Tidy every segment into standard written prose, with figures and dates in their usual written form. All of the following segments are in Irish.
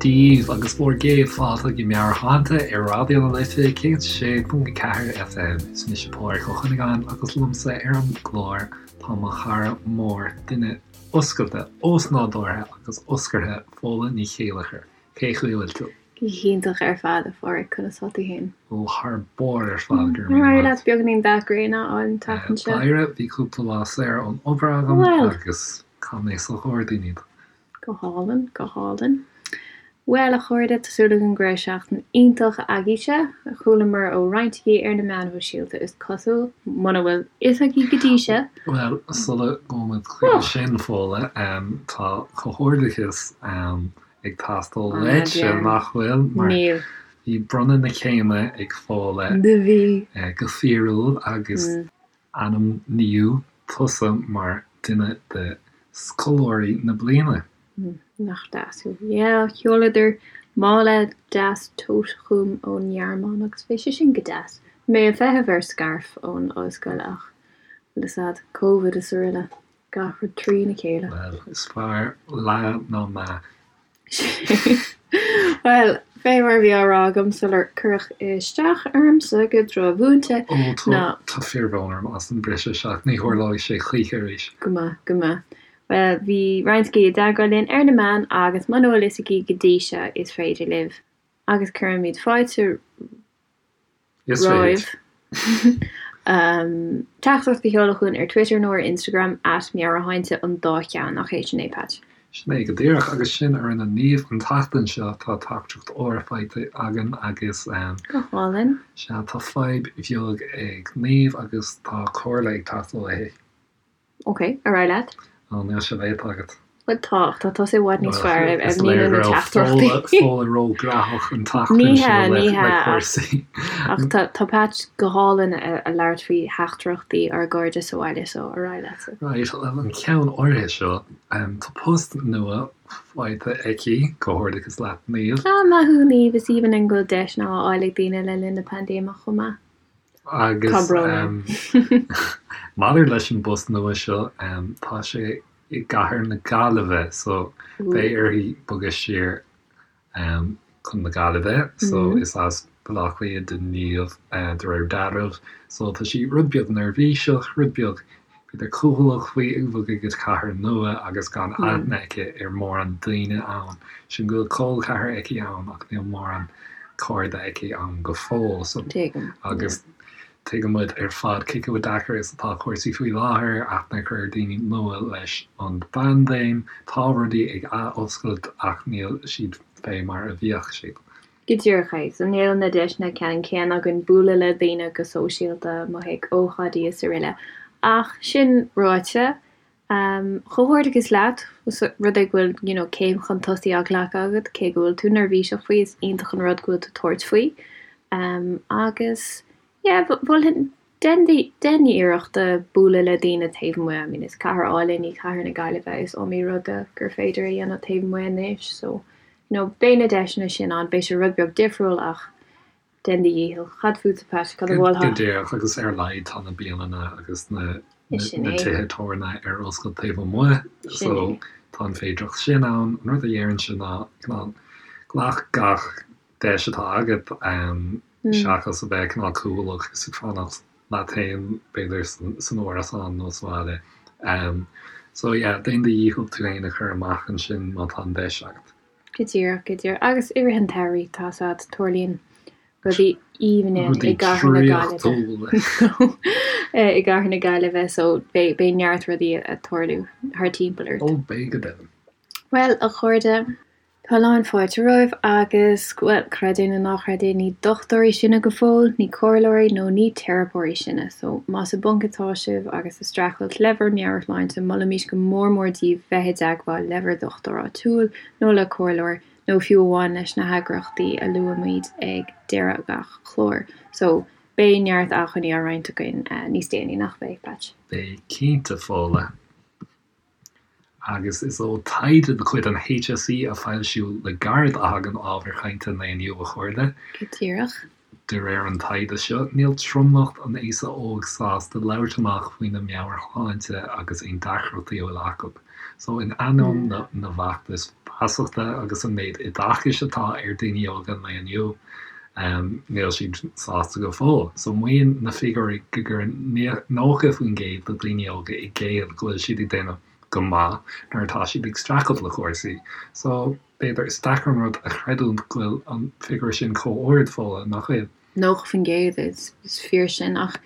daoibh agus bhur gcéad fáilte go Meabhairshláinte ar Raidió na Life 106.4 FM. Is mise Pádraig Ó Cuinneagáin agus liomsa ar an gclár tá mo chara mór, duine oscailte, ósnádúrtha agus oscartha, Fódhla Ní Chéilleachair. Cén chaoi a bhfuil tú? Go hiontach ar fad, a Phádraig, conas tá tú féin? Ó, thar barr ar fad, go raibh míle maith. Ar éirigh leat beagáinín dath gréine a fháil an tseachtain seo? D'éirigh, bhí cúpla lá saor ón obair agam agus chaith mé sa ghairdín iad. Go hálainn, go hálainn. Bhuel, a chairde, tá súil agam go raibh seachtain iontach agaibhse. Chualamar ó roinnt agaibh ar na meáin shóisialta, is cosúil, muna bhfuil fhios agaibh go dtí seo. Bhuel, sula ngabhaimid chuige sin, Fódhla, tá comhghairdeachas ag teastáil uaitse, nach bhfuil? Mar Níl. bhí bronnadh na céime ag Fódhla Do bhí. go fíorúil agus ainmníodh tusa mar duine de scoláirí na bliana. Nach deas thú. Yeah, sheoladar mála deas tote chugam ón nGearmáin agus bhí sé sin go deas. Bhí mé ag feitheamh ar scairf ón ollscoil ach, bhfuil fhios a'd, Covid is araile. Gach rud trína chéile. Bhuel, is fearr leath ná meath. Bhuel, fé mar a bhí á rá agam sular cuireadh isteach ormsa go drochmhúinte, Ó, tá, tá fíorbhrón orm as an briseadh isteach, ní tharlóidh sé choíche arís. Go maith, go maith. Bhuel, bhí roinnt agaibh i dteagmháil linn ar na meáin agus muna bhfuil fhios agaibh go dtí seo, is féidir libh, agus cuirimid fáilte Is romhaibh teachtaireacht a sheoladh chugainn ar Twitter nó ar Instagram, at Meabhairshláinte an dá cheann, nach é sin é, Patch? Sin é go díreach, agus sin a rinne Niamh an tseachtain seo, tá teachtaireacht úr faighte againn agus. Go hálainn. Sea, tá fadhb bheag ag Niamh agus tá comhairle ag teastáil uaithi. Ok, ar aghaidh leat. Ó, níl sé léite agat. Bhuel tá, ach tá tusa i bhfad níos fearr ar Is léir míniú na go raibh teachtaireachtaí. Fódhla Fódhla róghnóthach an tseachtain Ní seo hea, le ní le hea, ach cúrsaí. ach tá tá Patch go hálainn a a labhairt faoi theachtaireachtaí ár gcairde sa bhaile so ar aghaidh leatsa. Right, bhuel an ceann áirithe seo, tá post nua faighte aici, comhghairdeachas leat Niamh. Ah, maith thú Niamh, is aoibhinn linn go bhfuil deiseanna á fháil ag daoine le linn na paindéime chomh maith. Agus Tá brón orm. maidir leis an bpost nua seo, tá sé i gcathair na Gaillimhe so beidh uirthi bogadh siar chun na Gaillimhe. So is as Baile Átha Cliath do Niamh de réir dealraimh. So tá sí rud beag neirbhíseach, rud beag b'fhéidir cúthaileach faoi ag bogadh go cathair nua agus gan aithne aici ar mórán daoine ann. Sin go bhfuil col ceathar aici ann ach níl mórán cairde aici ann go fóill. So Tuigim. agus tuigeann muid ar fad cé chomh deacair is atá cúrsaí faoi láthair, aithne a chur ar daoine nua leis an bpaindéim. Tá rudaí ag ath-oscailt ach níl siad fé mar a bhíodh siad. Go díreach é. So níl na deiseanna ceannann céanna againn bualadh le daoine go sóisialta, amuigh ag ócáidí is araile. Ach sin ráite, comhghairdeachas leat, os rud é go bhfuil you know céim chun tosaigh á glacadh agat, cé go bhfuil tú neirbhíseach faoi, is iontach an rud go bhfuil tú ag tabhairt faoi. Agus yeah, mholfainn Dein dein iarracht bualadh le daoine taobh amuigh, I mean is cathair álainn í cathair na Gaillimhe, is iomaí rud gur féidir a dhéanamh taobh amuigh anois so you know beidh na deiseanna sin ann, beidh sé rud beag difriúil ach dein do dhícheall. Cad fútsa Pat, cad a mholfá? Go díreach agus ar a laghad tá na bialanna agus na na tithe tábhairne ar oscailt taobh amuigh so tá an féidireacht sin ann. An rud a dhéarfainnse ná cineál glac gach deis atá agat. seachas a bheith cineál cúthaileach is ag fanacht leat féin, b'fhéidir, san árasán nó sa bhaile. So yeah, déan do dhícheall tú féin a chur amach ansin má tá an deis agat. Go díreach, go díreach. Agus i rith an tsamhraidh, tá 's a'd, tarlaíonn rudaí aoibhne i gcathair na Gaillimhe. I gcathair na Gaillimhe, so beidh neart rudaí ag tarlú thar timpeall ort. Ó, beidh go deimhin. Bhuel, a chairde, Tá a lán fáilte romhaibh agus, bhuel, creid é nó ná creid é, ní dochtúirí sinne go fóill, ní comhairleoirí nó ní teiripeoirí sinne. So, más i bponc atá sibh agus ag streachailt le bhur meabhairshláinte, molaimís go mór mór daoibh bheith i dteagmháil le bhur dhochtúir áitiúil nó le comhairleoir nó fiú amháin leis na heagraíochtaí a luaimid ag deireadh gach cláir. So, beidh neart acmhainní á roinnt againn níos déanaí, nach mbeidh, Patch? Beidh cinnte, Fódhla. Agus is ó taighde de chuid an HSE a foilsíodh le gairid a thagann ábhar cainte an lae inniu, a chairde. Go díreach. De réir an taighde seo, níl tromlach an aosa óig sásta labhairt amach faoina meabhairshláinte agus aon deacrachtaí a bhfuil acu. So, in ainneoin na bhfeachtas feasachta agus an méid oideachais atá ar daoine óga an lae inniu, níl siad sásta go fóill. So, maíonn na figiúirí go gcuireann 90% de daoine óga i gcéill go bhfuil siad ag déanamh go maith nuair atá siad ag streachailt le cúrsaí. So. B'fhéidir, is deacair an rud a chreidiúint go bhfuil an figiúr sin chomh ard, Fódhla, nach bhfuil? 90%, is fíor sin, ach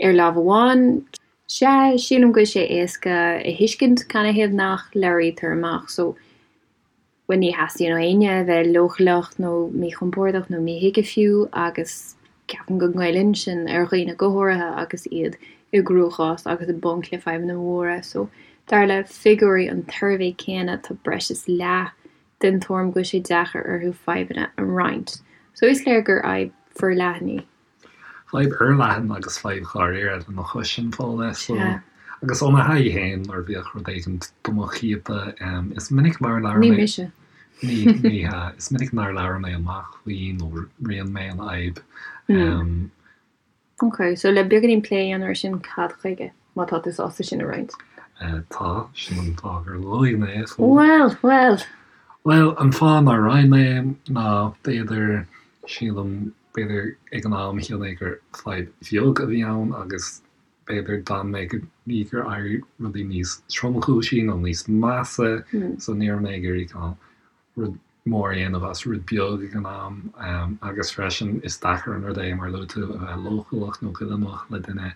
ar lámh amháin, sea, sílim go bhfuil sé éasca a thuiscint canathaobh nach labhraítear amach, so, bhuel, ní theastaíonn ó éinne a bheith leochaileach nó míchompordach nó míthuigthe fiú agus Ceapaim go ngoilleann sin ar dhaoine go háirithe agus iad i gcruachás agus i bponc le fadhbanna móra. So, dar le figiúirí an tsuirbhé céanna, tá breis is leath den tuairim go bhfuil sé deacair orthu fadhbanna a roinnt. So, is léir gur fhadhb forleathan í. Fadhb fhorleathan agus fadhb dháiríre lena chois sin, Fódhla. So, agus ó mo thaithí féin, nuair a bhíodh rud éigin do mo chiapadh, is minic nár labhair mé. Ní mise. Ní, ní hea. Is minic nár labhair mé amach faoi nó roinn mé an fhadhb. Ok, so le beagáinín plé a dhéanamh ar sin, cad chuige, má tá tú sásta sin a roinnt? Tá, sin an fáth gur luaigh mé é. Bhuel, bhuel! Bhuel, an fáth nár roinn mé é ná, b'fhéidir, sílim, b'fhéidir ag an am shíl mé gur fadhb bheag a bhí ann agus B'fhéidir d'fhan mé go dtí gur éirigh rudaí níos tromchúisí nó níos measa so ní raibh mé ag iarraidh cineál rud mór a dhéanamh as rud beag ag an am agus freisin is deacair an rud é mar a luaigh tú a bheith leochaileach nó goilleanach le duine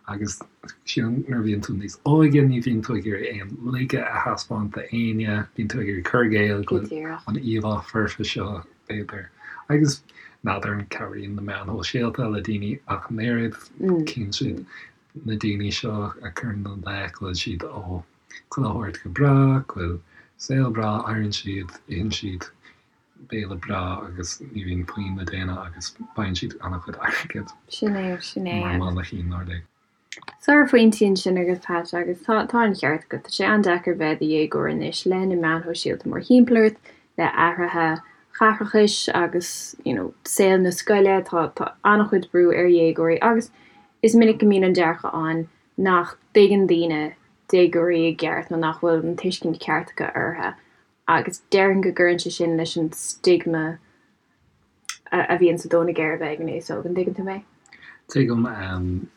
agus sílim nuair a bhíonn tú níos óige ní bhíonn tú ag iarraidh aon laige a thaispeáint d'éinne, bíonn tú ag iarraidh cur i gcéill go bhfuil an íomhá foirfe seo b'fhéidir. Agus n'fheadar an cabhraíonn na meáin shóisialta le daoine ach an oiread, cíonn siad na daoine seo a chuireann ina leith go bhfuil siad ó chuile shórt go breá, go bhfuil saol breá, éiríonn siad, itheann siad béile breá agus ní bhíonn puinn le déanamh agus faigheann siad an-chuid airgid. Sin é, sin é. Mar mhainnicín, nár lig. Sárphointí ansin agat Pat agus tá tá an ceart agat. Tá sé an-deacair bheith i do dhéagóir anois le na meáin shóisialta mórthimpeall ort, le athruithe chaithreachais agus you know saol na scoile, tá tá an-chuid brú ar dhéagóirí agus is minic go mbíonn an dearcadh ann nach dtuigeann daoine déagóirí i gceart nó nach bhfuil an tuiscint ceart acu orthu agus déarfainn go gcuireann sé sin leis an stigma a bhíonn sa dó na geirbe ag an aos óg, an dtuigeann tú mé? Tuigim.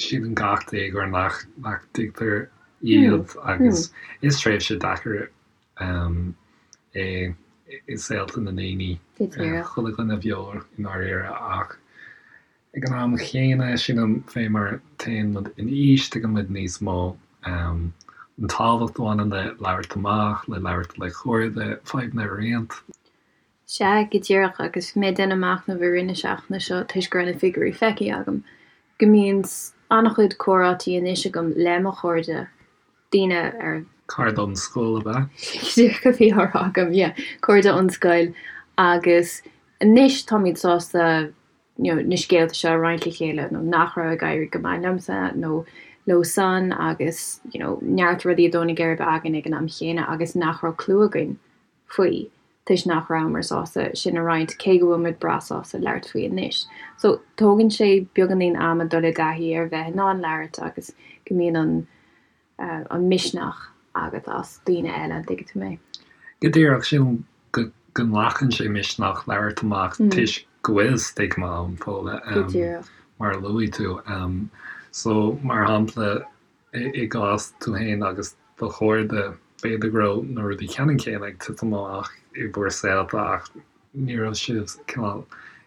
Síleann gach déagóir nach nach dtuigtear iad agus is tréimhse deacair é i saolta na ndaoine, chuile dhuine bheo i ndáiríre ach ag an am chéanna sílim fé mar téann muid in aois tuigeann muid níos mó an tábhacht a bhaineann le labhairt amach, le labhairt le cairde, fadhbanna a roinnt. Sea, go díreach, agus bhí mé ag déanamh machnaimh i rith na seachtaine seo toisc go raibh na figiúirí feicthe agam, go mbíonn an-chuid comhráití anois agam le mo chairde, daoine ar. Cairde ón scoil, ab ea? Go díreach a bhí á rá agam, yeah, cairde ón scoil agus anois táimid sásta you know na scéalta seo a roinnt le chéile nó nach raibh ag éirí go maith liomsa nó leo san agus you know neart rudaí ag dó na geirbe againn ag an am chéanna agus nach raibh clue againn faoi toisc nach rabhamar sásta sin a roinnt, cé go bhfuil muid breá sásta labhairt faoi anois. So, tógann sé beagáinín ama dul i dtaithí ar bheith in ann labhairt agus go mbíonn an an misneach agat as daoine eile, an dtuigeann tú mé? Go díreach, sílim go go nglacann sé misneach labhairt amach toisc go bhfuil stigma ann, Fódhla, Go díreach. mar a luaigh tú. So, mar shampla, I gcás tú féin agus do chairde, b'fhéidir go raibh na rudaí ceannann céanna ag titim amach i bhur saolta ach ní raibh sibh cineál,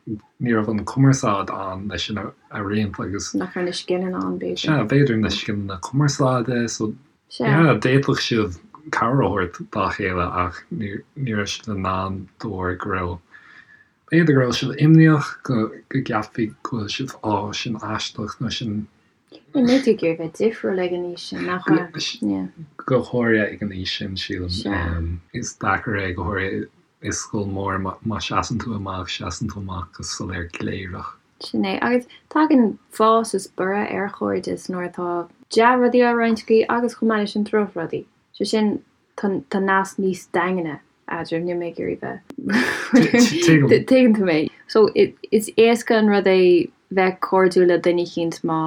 ní raibh an cumarsáid ann leis sin a roinnt agus. Nach raibh na scileanna ann b'fhéidir. Sea, b'fhéidir na scileanna cumarsáide so yeah d'fhéadfadh sibh cabhair a thabhairt dá chéile ach ní raibh sibh in ann de bharr go raibh, b'fhéidir go raibh sibh imníoch go gceapfaí go bhfuil sibh á sin aisteach nó sin Níl tú ag iarraidh bheith difriúil ag an aois sin, nach ea? Go háirithe ag an aois sin, sílim. Is deacair é, go háirithe i scoil mhór, má seasann tú amach, seasann tú amach go soiléir gléireach. Sin é. Agus tagann fás is borradh ar chairdeas nuair atá dea-rudaí á roinnt agaibh agus chomh maith leis sin drochrudaí. Sé sin, tá nasc níos daingne. Eadraibh, níl mé ag iarraidh bheith. Tuigeann tú mé. So, is éasca an rud é bheith cairdiúil le duine eicínt má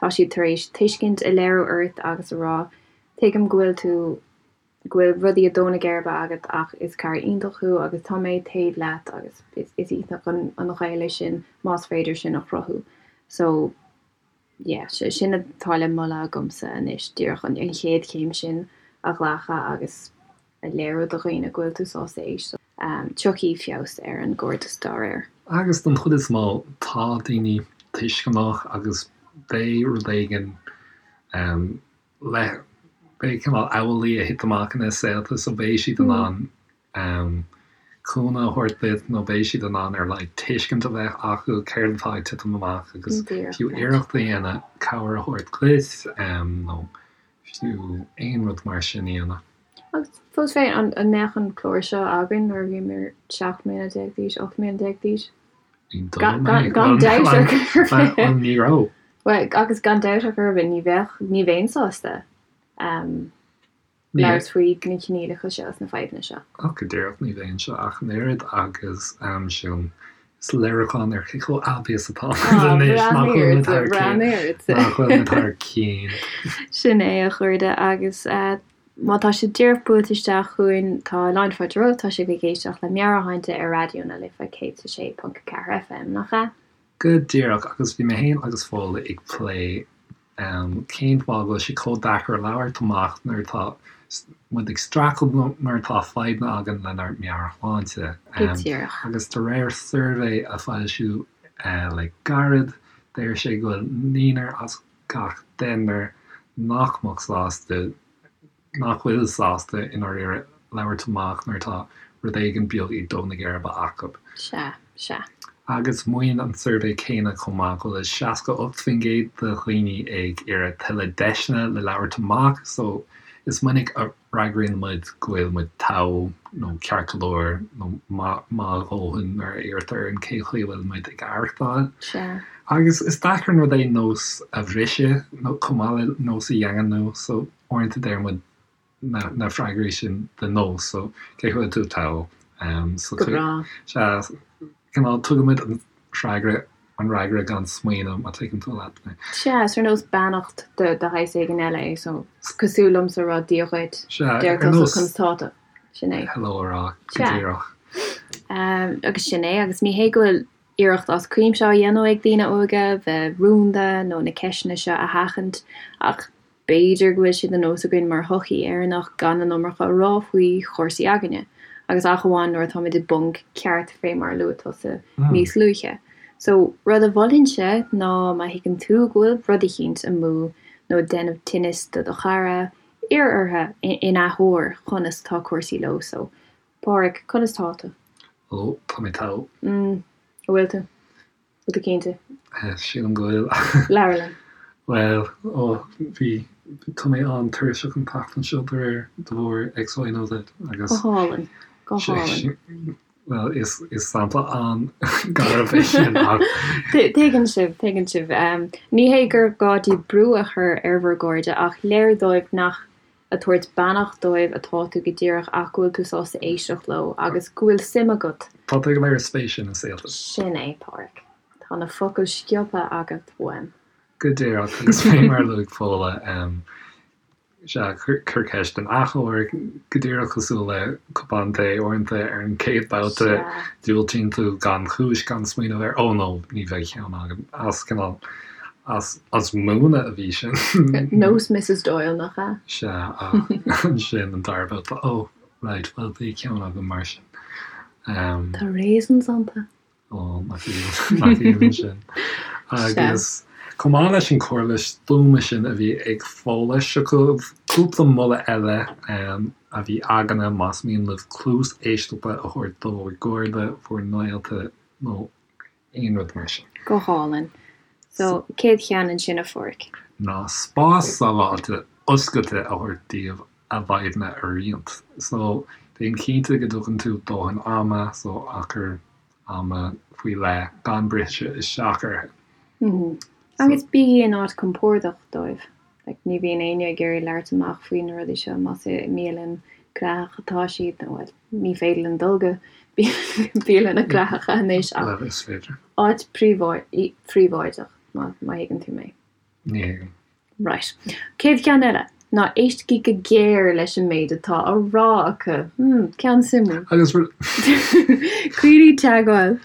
tá siad tar éis tuiscint a léiriú ort agus a rá, tuigim go bhfuil tú, go bhfuil rudaí ag dó na geirbe agat ach is cara iontach thú agus tá mé taobh leat agus is iontach an gaol é sin más féidir sin a chruthú. So, yeah, sin atá le moladh agamsa anois, díreach an chéad chéim sin a ghlacadh agus a léiriú do dhaoine go bhfuil tú sásta éisteacht. Tiocfaidh feabhas ar an gcairdeas dá réir. Agus don chuid is mó, tá daoine tuisceanach agus beidh rud éigin le, beidh cineál amhlaidh a thit amach ina saolta so beidh siad in ann cúnamh a thabhairt duit nó beidh siad in ann ar a laghad tuiscint a bheith acu céard atá ag titim amach agus fiú iarracht a dhéanamh cabhair a thabhairt duit nó fiú aon rud mar sin a dhéanamh. Agus fós féin, an mbeadh an clár seo againn nuair a bhíomar 17 mbliana d'aois, 18 mbliana d'aois? Gan dabht ar chor ar bith. Bhuel, ní raibh. Bhuel, agus gan dabht ar chor ar bith, ní bheadh, ní bheinn sásta. labhairt faoi na coinníollacha seo is na fadhbanna seo. Ach go díreach, ní bheinnse ach an oiread agus sin is léiriúchán ar cé chomh aibí is atá muid anois, nach bhfuil muid thar cionn, nach bhfuil muid thar cionn. Sin é, a chairde, agus má tá sibh díreach buailte isteach chugainn, tá lán fáilte romhaibh, tá sibh ag éisteacht le Meabhairshláinte ar Raidió na Life 106.4 FM, nach ea? Go díreach, agus bhí mé féin agus Fódhla ag plé Cén fáth go bhfuil sé chomh deacair labhairt amach nuair atá muid ag streachailt nó nuair atá fadhbanna againn lenár meabhairshláinte? Go díreach. Agus de réir suirbhé a foilsíodh le gairid, deir sé go bhfuil naonúr as gach deichniúr nach mbeadh sásta nach bhfuil sásta i ndáiríre labhairt amach nuair atá rud éigin beag ag dó na geirbe acu. Sea, sea. Agus maíonn an suirbhé céanna chomh maith go bhfuil 68% de dhaoine ag iarraidh tuilleadh deiseanna le labhairt amach so is minic a fhreagraíonn muid go bhfuil muid togha nó ceart go leor nó maith a dhóthain nuair a iarrtar orainn cén chaoi a bhfuil muid ag aireachtáil. Sea. Agus is deacair an rud é nós a bhriseadh nó chomh maith le nós a dhaingniú so Uaireanta deir muid na freagraí sin de nós, so cén chaoi a bhfuil tú togha? So Go breá. Sea, cineál tugaimid an freagra, an fhreagra gan smaoineamh, má tuigeann tú leat mé. Sea, is ar nós beannacht de shaghas éigin eile é, so cosúil liomsa a rá Dia dhuit, Sea, ar deir tusa nós conas tá tú? Sin é. hello a rá, go Sea. díreach. Agus sin é, agus ní hé go bhfuil iarracht as cuimse á dhéanamh ag daoine óga bheith rúnda nó na ceisteanna seo a sheachaint, ach B'fhéidir go bhfuil sé de nós againn mar shochaí Éireannach gan an iomarca a rá faoi chúrsaí aigne, agus ach amháin nuair atáimid i bponc ceart fé mar a luaigh tusa níos luaithe. So, rud a mholfainnse ná má thuigeann tú go bhfuil rud eicínt amú nó ag déanamh tinnis do do chara, iarr orthu in athuair conas tá cúrsaí leo. So, Páraic, conas tá tú? Ó, tá mé togha. Mm, an bhfuil tú? Bhfuil tú cinnte? Sílim go bhfuil. Labhair linn. Bhuel, ó, bhí, tá mé an-tuirseach an tseachtain seo de réir, de bharr X, Y nó Z agus. Go hálainn. Go hálainn. Bhuel, is, is sampla an-gharbh é sin ach. Tuigeann sibh, tuigeann sibh. Ní hé gur gá daoibh brú a chur ar bhur gcairde ach léiriú dóibh nach ag tabhairt beannacht dóibh atá tú go díreach ach go bhfuil tú sásta éisteacht leo agus go bhfuil suim agat. Tá tú ag léiriú spéise ina saolta. Sin é, Páraic. Tá na focail sciobtha agat uaim. Go díreach, agus fé mar a luaigh Fódhla, sea, cuir ceist in athuair, go díreach cosúil le cupán tae uaireanta ar an chéad babhta, diúltaíonn tú gan chúis, gan smaoineamh air, oh no, ní bheidh ceann agam, as cineál As múineadh a bhí sin. Nós Mrs Doyle, nach ea? Sea, ach ansin an dara babhta, oh, right, bhuel bhí ceann agam mar sin. Tá raisins iontu. Ó, nach aoibhinn sin. Agus chomh maith leis an chomhairle stuama sin a bhí ag Fódhla, seo chugaibh cúpla moladh eile a bhí againne más mian libh cluas éisteachta a thabhairt do bhur gcairde, bhur ngaolta nó aon rud mar sin. Go hálainn. So, céad cheann ansin a Pháraic? Ná spás sábháilte oscailte a thabhairt daoibh a bhfadhbanna a roinnt. So, déan cinnte go dtugann tú dóthain ama, so achar ama faoi leith, gan briseadh isteach orthu. Agus bígí in áit compordach dóibh. Like, ní bhíonn éinne ag iarraidh labhairt amach faoi na rudaí seo, más i mbialann. gnóthach atá siad, nó bhuel, ní féidir linn dul go bialanna gnóthacha anois ach Bhuel, is féidir. áit phríobháideach, má thuigeann tú mé. Ní thuigim. Right. Céad cheann eile ná éistigí go géar leis an méid atá á rá acu. Hmm, ceann suimiúil. Agus rud. Coinnigh teagmháil.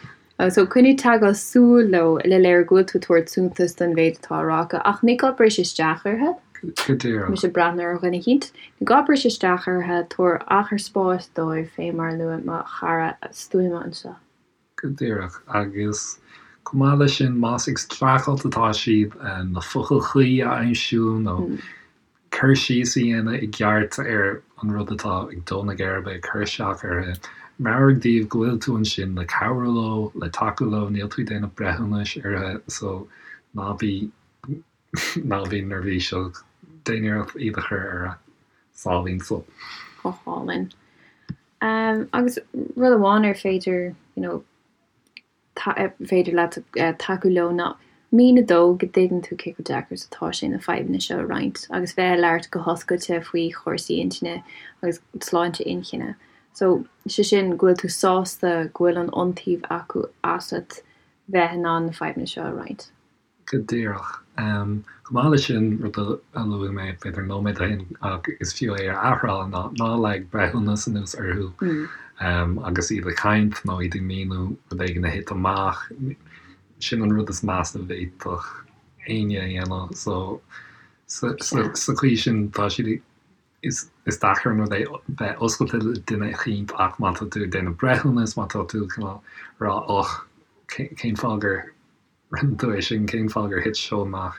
So, coinnigh teagmháil súl leo le léiriú go bhfuil tú ag tabhairt suntas don mhéid atá á rá acu, ach ní gá briseadh isteach orthu. Go díreach. Mise ag breathnú ar dhuine eicínt. Ní gá briseadh isteach orthu, tabhair achar spáis dóibh, fé mar a luaigh mo chara stuama anseo. Go díreach. Agus chomh maith leis sin, más ag streachailt atá siad na focail chuí a aimsiú nó cur síos a dhéanamh i gceart ar an rud atá ag dó na geirbe, ag cur isteach orthu, meabhraigh dóibh go bhfuil tú ansin le cabhrú leo, le tacú leo, níl tú ag déanamh breithiúnais orthu, so ná bí, ná bí neirbhíseach, déan iarracht iad a chur ar a sáimhín só. Go hálainn. Agus rud amháin ar féidir, you know, féidir leat tacú leo ná míniú dóibh go dtuigeann tú cé chomh deacair is atá sé na fadhbanna seo a roinnt agus bheith ag labhairt go hoscailte faoi chúrsaí intinne agus sláinte inchinne. So, sé sin go bhfuil tú sásta go bhfuil an iontaoibh acu asat bheith in ann na fadhbanna seo a roinnt. Go díreach. Chomh maith leis sin, rud a luaigh mé b'fhéidir nóiméad ó shin ach is fiú é a athrá ná ná leag breithiúnas anuas orthu agus iad ag caint nó iad ag míniú rud éigin a thit amach. Sin an rud is measa a bhféadfadh éinne a dhéanamh. So sa chaoi sin tá siad ag, is deacair an rud é bheith oscailte le duine eicínt ach má tá tú ag déanamh breithiúnas, má tá tú cineál ag rá och, cén fáth gur Rinne tú é sin, cén fáth gur thit seo amach?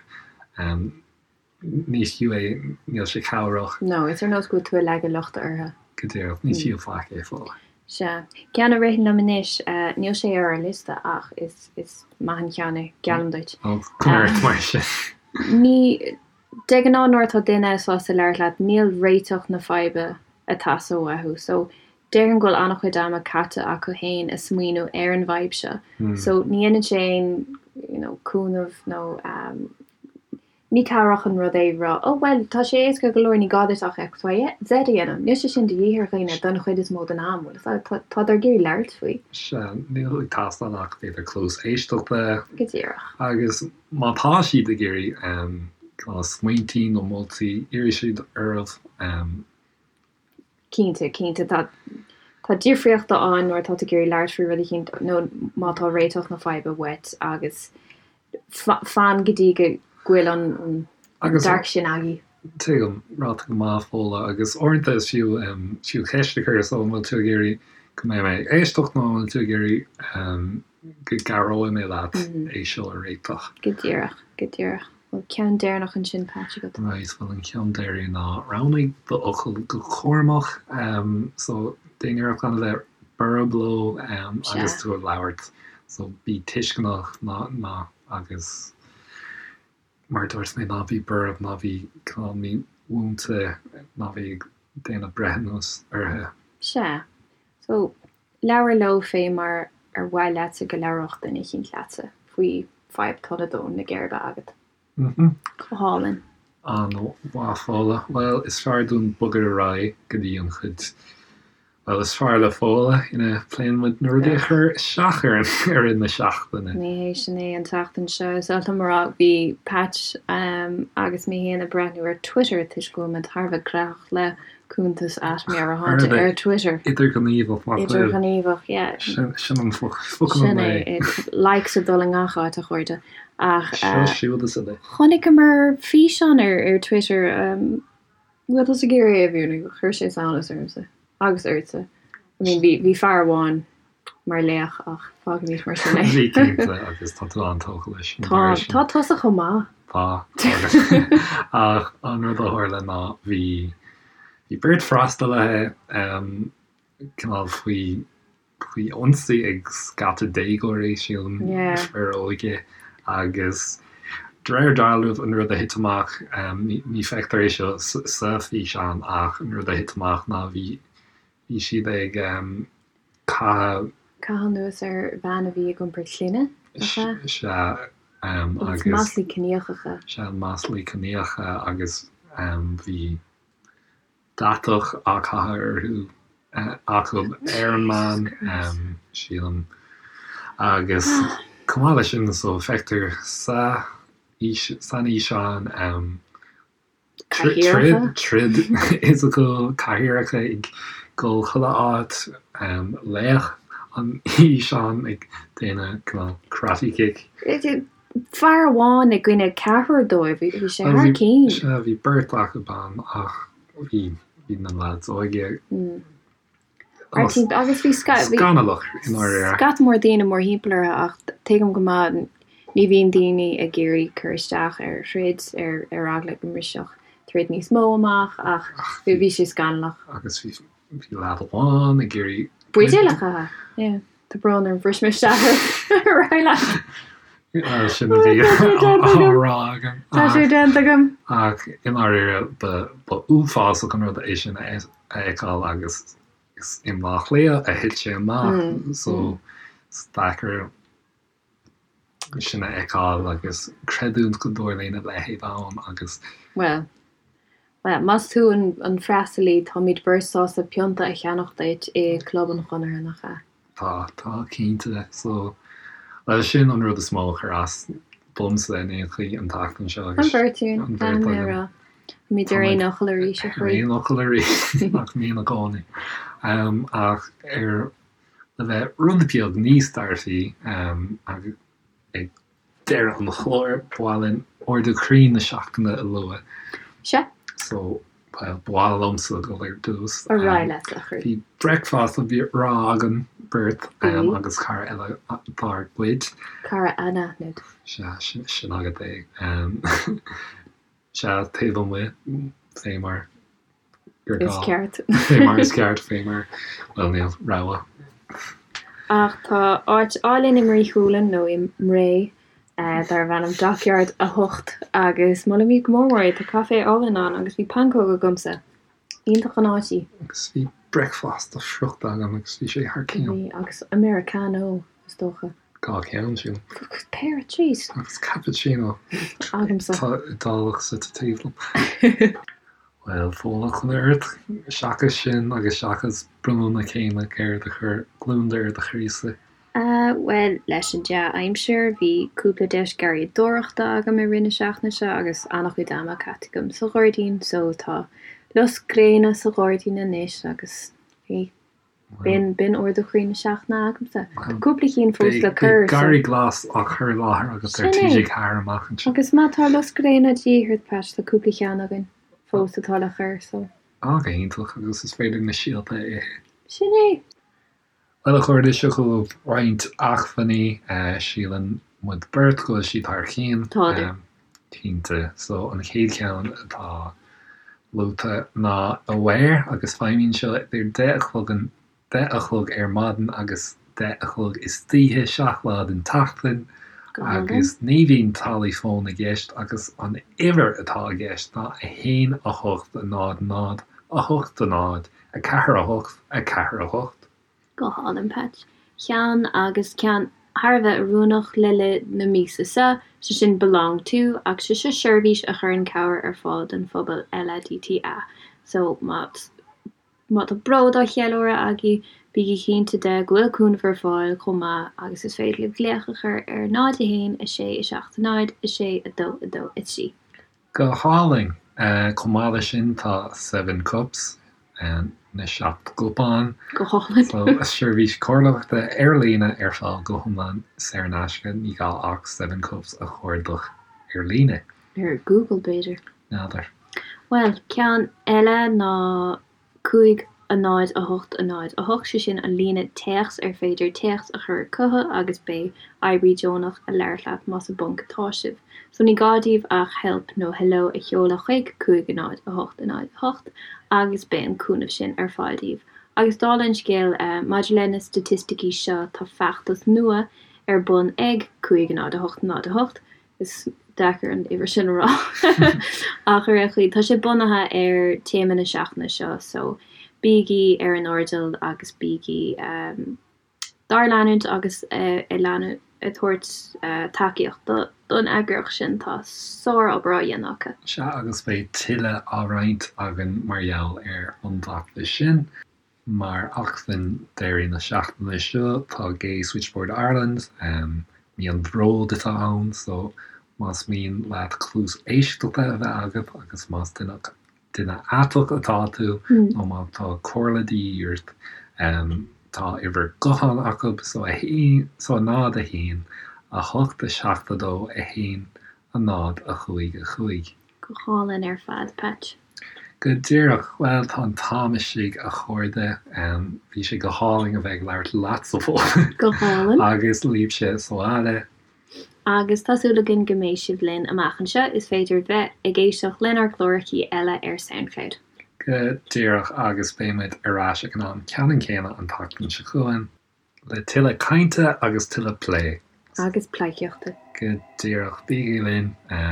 Ní fiú é, níl sé cabhrach. No, is ar nós go bhfuil tú ag leagadh lochta orthu. Go díreach, ní fiú faic é Fódhla. Sea. Ceann a ritheann liom anois, níl sé ar ár liosta ach is maith an ceann é, geallaim duit. Ó, coinnigh ort mar sin. Ní, de ghnáth nuair atá duine sásta labhairt leat, níl réiteach na faidhbe ag teastáil uathu. So, Déarfainn go bhfuil an-chuid ama caite acu féin ag smaoineamh ar an bhfadhb seo so ní dhéanann sé aon you know cúnamh nó ehm ní cabhrach an rud é rá oh bhuel tá sé éasca go leor ní gá duit ach X Y Z a dhéanamh. Níl sé sin de dhíth ar dhaoine don chuid is mó den am, bhfuil fhios agat, tádar ag iarraidh labhairt faoi. Sea, níl ag teastáil ach b'fhéidir cluas éisteachta. Go díreach. Agus má tá siad ag iarraidh ehm cineál smaointí nó moltaí, iarrfaidh siad oraibh ehm Cinnte, cinnte. Tá, tá difríocht ann nuair atá tú ag iarraidh labhairt faoi rud eicínt nó má tá réiteach na faidhbe uait agus fan go dtí go bhfuil an, an Agus. dearcadh sin agaibh. Tuigim, ráite go maith, Fódhla, agus uaireanta is fiú, fiú ceist a chur, so an bhfuil tú ag iarraidh go mbeidh mé ag éisteacht nó an bhfuil tú ag iarraidh go gcabhróidh mé leat é seo a réiteach? Go díreach, go díreach. Bhfuil ceann deireanach ansin, Patch, agat? Right, bhuel an ceann deiridh ná roghnaigh do fhocail go cúramach. So déan iarracht gan a bheith borb leo agus tú ag labhairt. So bí tuisceanach ná ná agus mar a dúirt mé ná bí borb, ná bí cineál mímhúinte, ná bí ag déanamh breithiúnas orthu. Sea. So Labhair leo fé mar ar mhaith leatsa go labhródh duine eicínt leatsa faoi fadhb atá ag dó na geirbe agat. Go hálainn. An-mhaith, Fódhla. Bhuel, is fearr dúinn bogadh ar aghaidh go dtí an chuid, bhuel, is fearr le Fódhla, ina bpléann muid na rudaí a chuir isteach orainn i rith na seachtaine. Ní hé sin é an tseachtain seo. Is oth liom a rá, bhí Patch agus mé féin ag breathnú ar Twitter toisc go bhfuil muid thar a bheith gnóthach le cuntas at Meabhairshláinte ar Twitter. Idirghníomhach, nach bhfuil? Idirghníomhach, yeah. Sin an focal an lae. Sin é, likes ag dul i ngach áit, a chairde. Ach. Seo siúd is uile. Chonaiceamar físeán ar Twitter, bhfuil tusa ag iarraidh é a mhúineadh? Chuir sé samhnas ormsa. Agus ortsa. I mean, bhí, bhí fear amháin mar laoch ach fágfaimid mar sin é. Bhí cinnte agus tá tú an-tógtha leis an Tá, tá tusa chomh maith. Tá, ach an rud a tharla ná bhí, bhí beirt freastalaithe cineál faoi, faoi ionsaí ag scata déagóirí, sílim, fir óga agus de réir dealraimh an rud a thit amach, ní feictear é seo sa físeán ach an rud a thit amach ná bhí bhí siad ag caitheamh. Caitheamh anuas ar bhean a bhí ag iompar clainne, nach ea? Sea, agus. Maslaí ciníochacha. Sea, maslaí ciníocha agus bhí. deatach á caitheamh orthu acu ar an meán, sílim. Agus chomh maith leis sin, so feictear sa san fhíseán Cathaoireacha? Troid fhisiciúil, cathaoireacha ag dul chuile áit, laoch an fhíseáin ag déanamh cineál karate kick. Fear amháin i gcoinne ceathrar dóibh, bhí sé thar cinn. Sea, bhí beirt acu ann ach bhí na lads óga Agus bhí scannalach i ndáiríre. Scata mór daoine mórthimpeall orthu ach tuigim go maith ní bhíonn daoine ag iarraidh cur isteach ar throid ar ar eagla go mbrisfeadh troid níos mó amach ach bhí sé scannalach. Agus bhí leaid amháin ag iarraidh. Buidéal a chaitheamh, yeah. Tá brón orm, bhris mé isteach ar aghaidh leat. Sin a bhí á rá agam. Tá sé déanta agam. Ach i ndáiríre ba uafásach an rud é sin a a fheiceáil agus is i mBleá Cliath a thit sé amach so is deacair sin a fheiceáil agus creidiúint go dtarlaíonn a leithéid ann agus. Bhuel, bhuel, más tú an freastalaí, táimid beirt sásta pionta a cheannach duit i gClub an Chonartha, nach ea? Tá, tá, cinnte. So, bhuel, sin an rud is mó a chuir as domsa in aon chaoi an tseachtain seo agus. An bheirt againn, an bheirt againn. a rá. Táimid ar aon fhocal arís, a chroí. Ar aon fhocal arís, nach mbíonn i gcónaí. Ach ar le bheith rud beag níos dearfaí, ag deireadh an chláir, ba mhaith linn ardú croí na seachtaine a lua. Sea. So, bhuel, ba mhaith liomsa dul ar dtús. Ar aghaidh leat, a chroí. Bhí bricfeasta breá againn beirt agus cara eile dár gcuid. Cara anaithnid. Sea, sin agat é. Sea, taobh amuigh, fé mar gur gá. Is ceart. Fé mar is ceart, fé mar, bhuel, níl rogha. Ach tá áit álainn i mBrí Chualann, nó i mBré, darbh ainm Dockyard 8 agus molaimid go mór mór é. Tá caifé álainn ann agus bhí pancóg agamsa. Iontach an áit í. Agus bhí bricfeasta friochta agam agus bhí sé thar cionn. Bhí, agus Americano, is dócha. Dhá cheann, sílim. Péire, jeez. Agus cappuccino. Agamsa. Tá Iodálach suite taobh liom. Bhuel, Fódhla, conas ort, seachas sin agus seachas bronnadh na céime, céard a chuir gliondar ar do chroísa? Bhuel, leis an dea-aimsir, bhí cúpla deis garraíodóireachta agam i rith na seachtaine seo agus an-chuid ama caite agam sa ghairdín, so tá lus gréine sa ghairdín anois agus bhí B'in, b'in ardú croí na seachtaine agamsa. Tá cúpla cinn fós le cur, so. Beidh garraí glas á chur i láthair agat ar TG4 amach anseo. Agus má tá lus gréine de dhíth ort, Pat, tá cúpla ceann againn fós atá le cur, so. Á, go hiontach, agus is féidir na síolta a ithe. Sin é! Bhuel, a chairde, seo chugaibh roinnt acmhainní. Síleann muid beirt go bhfuil siad thar cionn. Tádar. Cinnte. So, an chéad cheann atá luaite ná Aware agus feidhmíonn seo idir 10 a chlog an 10 a chlog ar maidin agus 10 a chlog istoíche, 7 lá den tseachtain agus ní bhíonn táillí fóin i gceist agus an uimhir atá i gceist ná 1 8 0 0 8 0 4 8 4 8. Go hálainn, Pat. Ceann agus ceann thar a bheith oiriúnach le linn na míosa seo, sé sin Belong To, ach sé seo seirbhís a chuireann cabhair ar fáil don phobal LADTA. So má má tá bród á cheiliúradh agaibh, bígí cinnte de go bhfuil cúnamh ar fáil chomh maith agus is féidir libh glaoch a chur ar 0 1 6 7 0 6 2 2 3. Go hálainn! Chomh maith leis sin tá Seven Cups, na seacht gcupán. Go hálainn! So, seirbhís comhairleoireachta ar líne ar fáil go hiomlán saor in aisce, ní gá ach Seven Cups a chuardach ar líne. Ar Google, b'fhéidir. N'fheadar. Bhuel, ceann eile ná 5 0 8 0 8, sé sin an líne téacs ar féidir téacs a chur chucu agus beidh oibrí deonach ag labhairt leat más i bponc atá sibh. So ní gá daoibh ach help nó hello a sheoladh chuig 5 0 8 0 8 agus beidh an cúnamh sin ar fáil daoibh. Agus dála an scéil, maidir le na staitisticí seo tá feachtas nua ar bun ag 5 0 8 0 8, Is deacair an uimhir sin a rá ach ar aon chaoi, tá sé bunaithe ar téama na seachtaine seo so bígí ar an airdeall agus bígí dár leanúint agus ag leanúint. ag tabhairt tacaíocht don eagraíocht sin. Tá sár-obair á dhéanamh acu. Sea, agus beidh tuilleadh á roinnt againn mar gheall ar an bhfeachtas sin. Mar acmhainn deiridh na seachtaine seo, tá Gay Switchboard Ireland, mí an bhróid atá ann, so más mian leat cluas éisteachta a bheith agat agus más duine duine aiteach atá tú nó má tá comhairle de dhíth ort, tá uimhir gutháin acu, so 1, so 0, 1, 8, 7, 2, 1, 0, 5, 5. Go hálainn ar fad, Patch. Go díreach. Bhuel, tá an t-am istigh, a chairde. Bhí sé go hálainn a bheith ag labhairt leatsa, Fódhla. Go hálainn. Agus libhse sa bhaile. Agus tá súil againn go mbeidh sibh linn amach anseo. Is féidir bheith ag éisteacht lenár gclárachaí eile ar Soundcloud. Go díreach, agus beidh muid ar ais ag an am ceannann céanna an tseachtain seo chugainn. Le tuilleadh cainte agus tuilleadh plé. Agus pleidhcíochta. Go díreach. Bígí linn.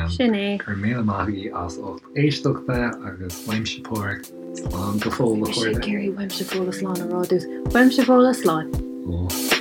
Sin é. Go raibh míle maith agaibh as ucht éisteachta agus uaimse Páraic. Slán go fóill a chairde. Bhí mise ag iarraidh uaimse Fódhla slán a rá duit. Uaimse Fódhla slán. Ó.